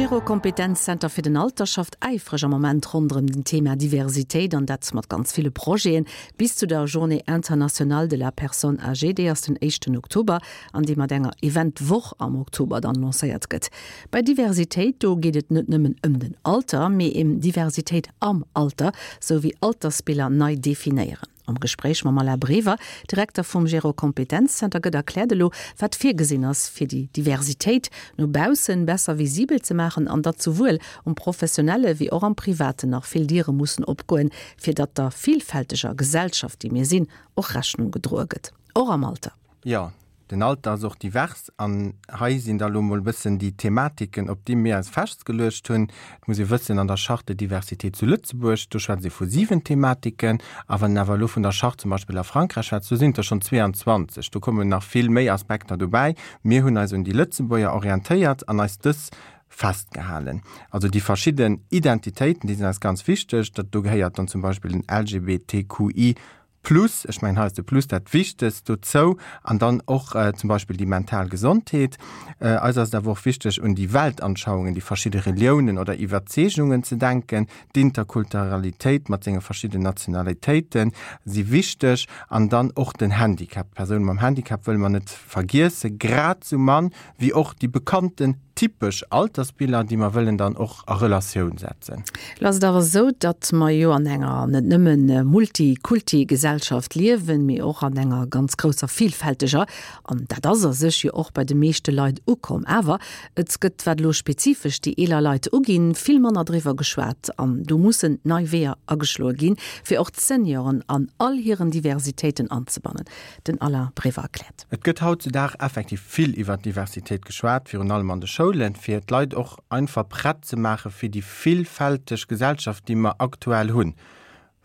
Gero Kompetenzzenter fir den Alter schafft äifreg am Moment ronderëm den Thema Diversitéit an dat mat ganz ville Projeten bis zu der Journée internationale de la personne âgée, déi ass den éischten Oktober an déi mat enger Event-Woch am Oktober dann lancéiert gëtt. Bei Diversitéit, do geet et net nëmmen ëm den Alter, mee ém Diversitéit am Alter, sou wéi Altersbiller nei definéieren. Am Gespréich mam Alain Brever, Direkter vum Gero Kompetenzzenter, gëtt erkläert elo, wat virgesinn ass, fir déi Diversitéit no baussen besser visibel ze maachen an datt souwuel um professionelle wéi och am Privaten nach vill Diere mussen opgoen, fir datt der villfälteger Gesellschaft, déi mir sinn, och Rechnung gedroe gëtt, och am Alter. Jo, den Alter ass och divers an hei sinn da lo mol e bëssen déi Thematiken, op déi mir eis festgeluecht hunn. Et muss ee wëssen, an der Charte de diversité zu Lëtzebuerg, do schwätzt ee vu 7 Thematiken, a wann een awer elo vun der Charte zum Beispill a Frankräich schwätzt, do sinn et der schonn 22. Do kommen nach vill méi Aspekter dobäi. Mir hunn eis un déi Lëtzebuerger orientéiert an eis dës festgehalen. Also déi verschidden Identitéiten, déi sinn eis ganz wichteg. Dat do gehéiert dann zum Beispill den LGBTQI Plus, ech mengen hei ass de Plus dat Wichtegst dozou, an dann och zum Beispill déi mental Gesondheet. Eis ass et awer och wichteg un déi Weltanschauungen, déi verschidde Reliounen oder Iwwerzeegungen ze denken. D'Interkulturalitéit mat senge verschidden Nationalitéite si wichteg an dann och den Handicap. D'Persoune mam Handicap wëlle mer net vergiessen, grad sou mann wéi och déi bekannten typesch Altersbiller, déi mer wëllen dann och a Relatioun setzen. Lo ass et awer esou, datt mer jo an enger net nëmmen Multikulti-Gesellschaft liewen, mee och an enger ganz grousser vielfälteger. An dat ass a sech jo och bei de meeschte Leit ukomm. Awer et gëtt, wat elo spezifesch déi eeler Leit uginn, vill manner driwwer geschwat. An do mussen nei Weeër ageschloe ginn, fir och d'Senioren an all hiren Diversitéiten anzebannen. Den Alain Brever erkläert. Et gëtt hautzudag effektiv vill iwwer Diversitéit geschwat, virun allem an de Schoulen, fir d'Leit och einfach prett ze maache fir déi villfälteg Gesellschaft, déi mer aktuell hunn.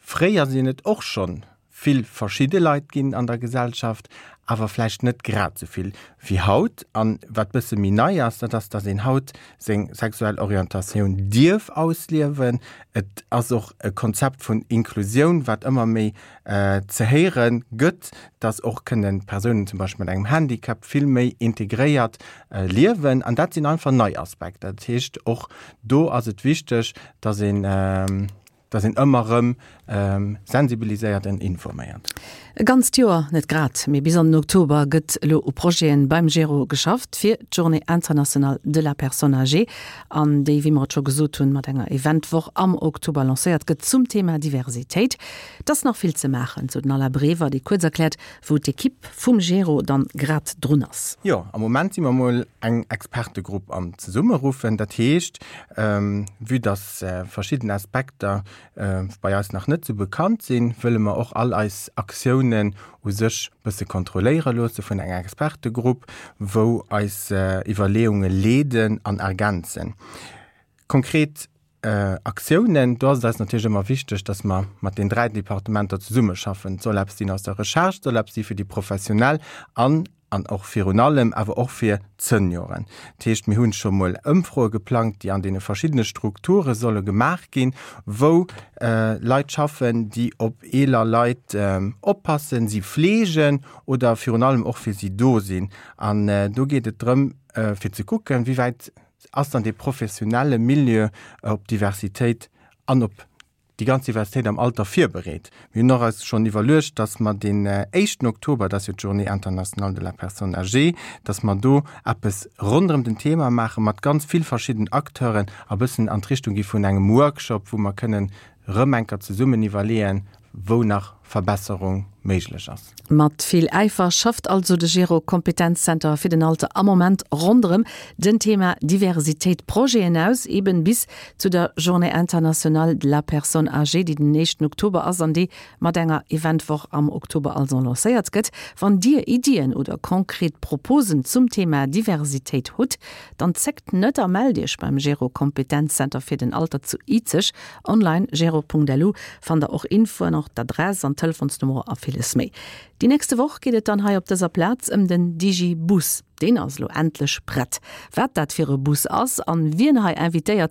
Fréier sinn et och schonn vill verschidde Leit ginn an der Gesellschaft, awer vläicht net grad esou vill wéi haut. An wat bësse méi nei ass, dat ass, dass een haut seng sexuell Orientatioun dierf ausliewen. Et ass och e Konzept vun Inklusioun, wat ëmmer méi ze héiere gëtt, dass och kënnen Persounen zum Beispill mat engem Handicap vill méi integréiert liewen. An dat sinn einfach nei Aspekter. Dat heescht, och do ass et wichteg, dass een, dass een ëmmer erëm sensibiliséiert an informéiert. E ganzt Joer net grad, mee bis an den Oktober gëtt elo u Projeten beim Gero geschafft fir d'Journée internationale de la personne âgée an déi, wéi mer et scho gesot hunn, mat enger Eventwoch am Oktober lancéiert gëtt zum Thema Diversitéit. Et ass nach vill ze maachen, sou den Alain Brever, dee kuerz erkläert, wou d'Ekipp vum Gero dann grad drun ass. Jo, am Moment si mer mol eng Expertegrupp am Zesummeruffen. Dat heescht, vue dass verschidden Aspekter bei eis nach net sou bekannt sinn, wëlle mer och all eis Aktiounen u sech bësse kontrolléiere loosse vun enger Expertegrupp, wou eis Iwwerleeunge leeden an ergänzen. Konkret Aktiounen, do ass et eis natierlech ëmmer wichteg, dass mer mat den 3 Departementer zesummeschaffen. Et soll eppes sinn aus der Recherche, et soll eppes si fir déi Professionell an, an och virun allem awer och fir d'Senioren. Dat heescht, mir hunn scho mol Ëmfroe geplangt, déi an deene verschiddene Strukture solle gemaach ginn, wou Leit schaffen, déi op eeler Leit oppassen, si fleegen oder virun allem och fir si do sinn. An do geet et drëm, fir ze kucken, wéi wäit Ass dann dee professionelle Milieu op Diversitéit an op déi ganz Diversitéit am Alter virbereet? Mir hunn och eis schonn iwwerluecht, dass mer deen éischten Oktober, dat ass jo d'Journée internationale de la personne âgée, dass mer do eppes ronderëm den Thema maache mat ganz vill verschidden Acteuren a bëssen an d'Richtung gi vun engem Workshop, wou mer kënnen rëm enker zesummen iwwerleeën, wou nach Verbesserung méiglech ass. Mat vill Äifer schafft also de Gero Kompetenzzenter fir den Alter am Moment ronderëm den Thema Diversitéit Projeten aus, eben bis zu der Journée internationale de la personne âgée, déi den éischten Oktober ass an déi mat enger Eventwoch am Oktober also lancéiert gëtt. Wann Dir Iddien oder konkret Proposen zum Thema Diversitéit hutt, dann zéckt net a mellt Iech beim Gero Kompetenzzenter fir den Alter zu Izeg. Online, gero.lu, fannt der och Infoen, och d'Adress an d'Telefonsnummer a villes méi. Déi nächste Woch geet et dann hei op dëser Plaz ëm den Digibus. Deen ass elo endlech prett. Wat dat fir e Bus ass an wien hei invitéiert.